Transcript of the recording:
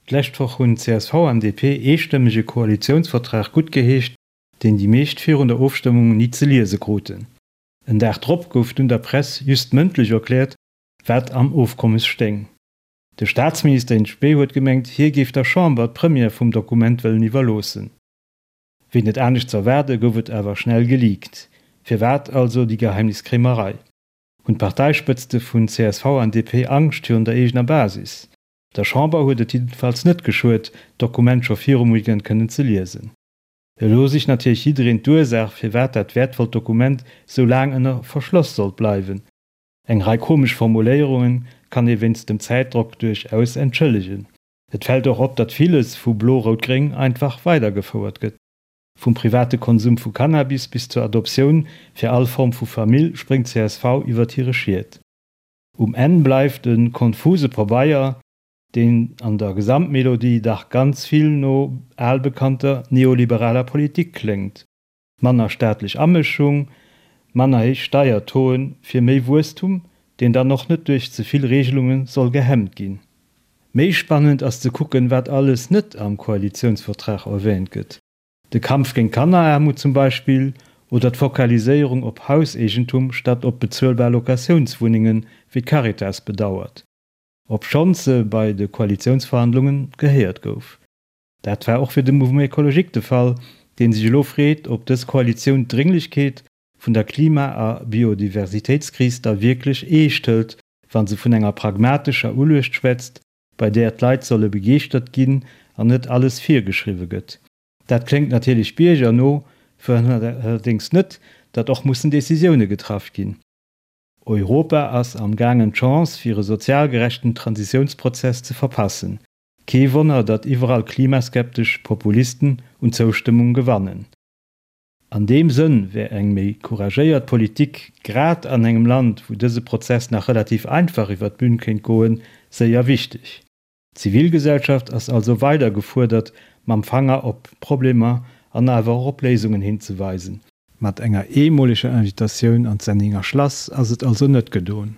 D'lescht Woch hunn csv an DP eestëmmeg e Koalitiounsvertrag guttgeheescht, deen déi meescht virun der Ofstëmmung ni ze liese kruten. En Dag drop gouf dunn der Press just mëndlech erkläert, wat am Ofkommes stéing. De Staatsminister in spe huet gemengt, hie géif der Chamber d'Première vum Dokument wëllen iwwerloossen. Wéi net anescht z'erwaarde gouf et awer schnell geleakt. Firwat also déi Geheimniskréimerei? Hunn d'Parteispëtzte vun csv an DP Angscht virun der eegener Basis? Der Chamber huet et jiddefalls net geschuet, d'Dokument scho virum Weekend kënnen ze liesen. Elo sicht natierlech jiddereen d'Ursaach, firwat dat wäertvollt Dokument sou laang ënner Verschloss sollt bleiwen. Eng Rei komesch Formuléierunge kann ee wéinst dem Zäitdrock duerchaus entschëllegen. Et fält och op, datt villes vu Blo-Rout-Gréng einfach weidergefouert gëtt. Vum private Konsum vu Cannabis bis zur Adoptioun fir all Form vu Famill spréngt csv iwwert hire Schiet. Um Enn bleift e konfuse Pabeier, deen an der Gesamtmelodie dach ganz vill no albekannter neoliberaler Politik kléngt, manner staatlech Amëschung, manner héich Steiertauxen fir méi Wuesstum, deen dann och net duerch ze vill Regelunge soll gehemmt ginn. Méi spannend ass ze kucken, wat alles net am Koalitiounsvertrag erwähnt gëtt. De Kampf géint Kanneraarmut zum Beispill oder d'Fokaliséierung op Hauseegentum statt op bezuelbar Locatiounswunnengen, wéi d'Caritas bedauert, obschonns se bei de Koalitiounsverhandlunge gehéiert gouf. Dat war och fir de Mouvement Ecologique de Fall, dee sech elo freet, ob dës Koalitioun d'Drénglechkeet vun der Klima a Biodiversitéitskris da wierklech eescht hëlt, wa se vun enger pragmatescher Uluecht schwätzt, bei där d'Leit solle begeeschtert ginn an net alles virgeschriwwe gëtt. Dat kléngt natierlech biergerno, verhënnert allerdéngs net, datt och mussen Decisioune getraff ginn. Europa ass am gaangen d'Chance fir e sozial gerechten Transitiounsprozess ze verpassen. Kee Wonner, datt iwwerall klimaskeptesch Populisten un Zoustëmmung gewannen. An deem Sënn wär eng méi couragéiert Politik, grad an engem Land, wou dëse Prozess nach relativ einfach iwwer d'Bün kéint goen, séier wichteg. D'Zivilgesellschaft ass also weider gefuerdert, mam Fanger op Problemer an awer och op Léisungen hinzeweisen. Mat enger eemoleger Invitatioun an d'Senninger Schlass ass et also net gedoen.